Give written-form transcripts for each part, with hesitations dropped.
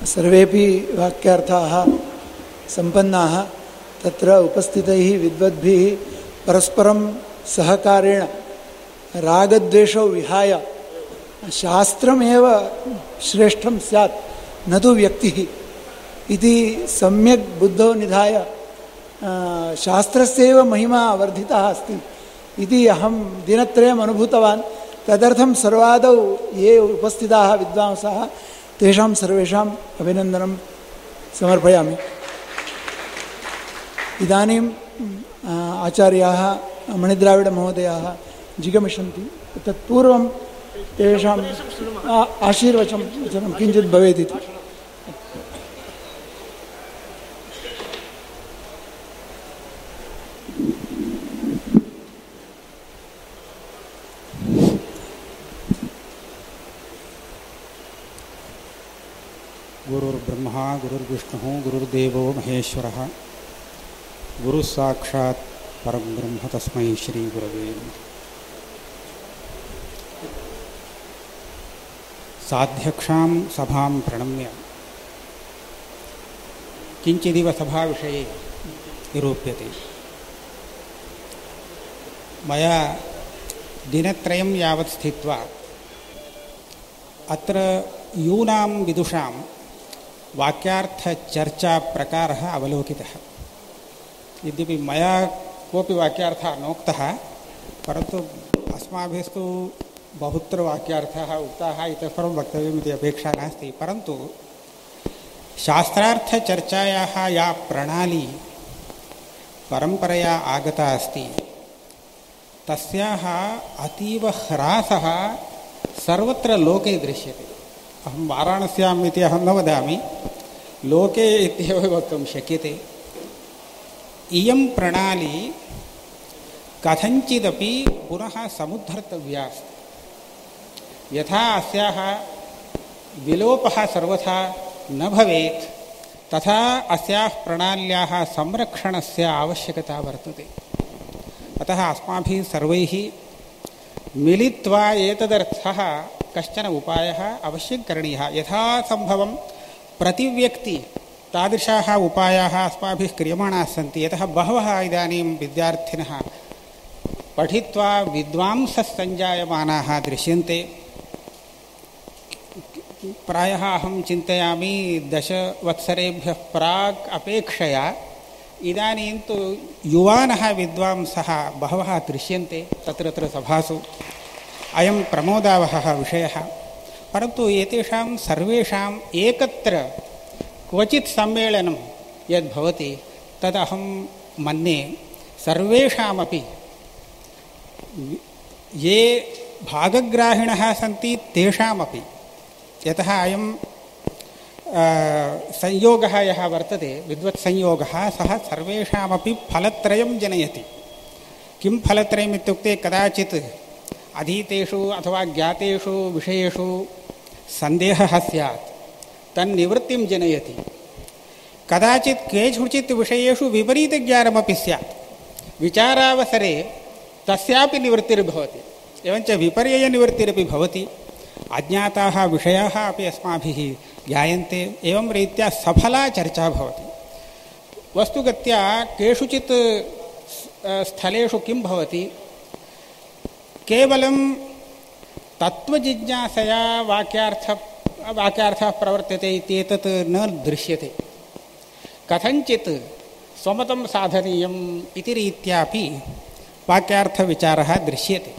सर्वेपि वाक्यार्थाः सम्पन्नाः तत्र उपस्थितैः विद्वद्भिः परस्परं सहकारेण रागद्वेषौ विहाय शास्त्रमेव श्रेष्ठं स्यात् न तु व्यक्तिः इति सम्यक् बुद्धौ निधाय शास्त्रस्यैव महिमा वर्धितः अस्ति इति अहं दिनत्रयम् अनुभूतवान्। तदर्थं सर्वादौ ये उपस्थिताः विद्वांसः तेषां सर्वेषाम् अभिनन्दनं समर्पयामि। इदानीम् आचार्याः मणिद्राविडमहोदयाः जिगमिषन्ति। तत्पूर्वं तेषाम् आशीर्वचनं किञ्चित् भवेत् इति। गुरुर्ब्रह्मा गुरुर्विष्णुः गुरुर्देवो महेश्वरः गुरुः साक्षात् परं ब्रह्म तस्मै श्री गुरवे नमः। साध्यक्षां सभां प्रणम्य किञ्चिदिव सभाविषये निरूप्यते। मया दिनत्रयं यावत् स्थित्वा अत्र यूनां विदुषां वाक्यार्थचर्चा प्रकारः अवलोकितः। यद्यपि मया कोऽपि वाक्यार्थः नोक्तः, परन्तु अस्माभिस्तु बहुत्र वाक्यार्थाः उक्ताः, इतः परं वक्तव्यमिति अपेक्षा नास्ति। परन्तु शास्त्रार्थचर्चायाः या प्रणाली परम्परया आगता अस्ति तस्याः अतीव ह्रासः सर्वत्र लोके दृश्यते। अहं वाराणस्याम् इति अहं न वदामि, लोके इत्येव वक्तुं शक्यते। इयं प्रणाली कथञ्चिदपि पुनः समुद्धर्तव्या अस्ति। यथा अस्याः विलोपः सर्वथा न भवेत्, तथा अस्याः प्रणाल्याः संरक्षणस्य आवश्यकता वर्तते। अतः अस्माभिः सर्वैः मिलित्वा एतदर्थः कश्चन उपायः अवश्यं करणीयः। यथासम्भवं प्रतिव्यक्ति तादृशाः उपायाः अस्माभिः क्रियमाणाः सन्ति। यतः बहवः इदानीं विद्यार्थिनः पठित्वा विद्वांसः सञ्जायमानाः दृश्यन्ते। प्रायः अहं चिन्तयामि 10 वत्सरेभ्यः प्राक् अपेक्षया इदानीं तु युवानः विद्वांसः बहवः दृश्यन्ते तत्र सभासु। अयं प्रमोदावहः विषयः। परन्तु एतेषां सर्वेषाम् एकत्र क्वचित् सम्मेलनं यद्भवति तदहं मन्ये सर्वेषामपि ये भागग्राहिणः सन्ति तेषामपि, यतः अयं संयोगः यः वर्तते विद्वत्संयोगः, सः सर्वेषामपि फलत्रयं जनयति। किं फलत्रयम् इत्युक्ते, कदाचित् अधीतेषु अथवा ज्ञातेषु विषयेषु सन्देहः स्यात्, तन्निवृत्तिं जनयति। कदाचित् केषुचित् विषयेषु विपरीतज्ञानमपि स्यात्, विचारावसरे तस्यापि निवृत्तिर्भवति। एवञ्च विपर्ययनिवृत्तिरपि भवति। अज्ञाताः विषयाः अपि अस्माभिः ज्ञायन्ते। एवं रीत्या सफला चर्चा भवति। वस्तुगत्या केषुचित् स्थलेषु किं भवति, केवलं तत्त्वजिज्ञासया वाक्यार्थः प्रवर्तते इत्येतत् न दृश्यते। कथञ्चित् स्वमतं साधनीयम् इति रीत्यापि वाक्यार्थविचारः दृश्यते।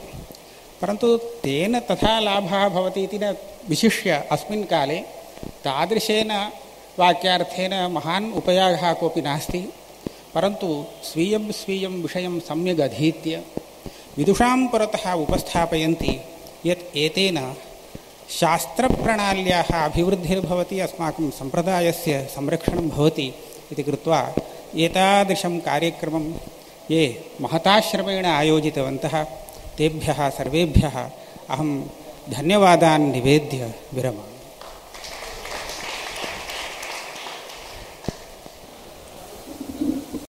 परन्तु तेन तथा लाभः भवति इति न विशिष्य अस्मिन् काले तादृशेन वाक्यार्थेन महान् उपयोगः कोऽपि नास्ति। परन्तु स्वीयं स्वीयं विषयं सम्यग् अधीत्य विदुषां पुरतः उपस्थापयन्ति यत् एतेन शास्त्रप्रणाल्याः अभिवृद्धिर्भवति, अस्माकं सम्प्रदायस्य संरक्षणं भवति इति कृत्वा एतादृशं कार्यक्रमं ये महताश्रमेण आयोजितवन्तः तेभ्यः सर्वेभ्यः अहं धन्यवादान् निवेद्य विरमामि।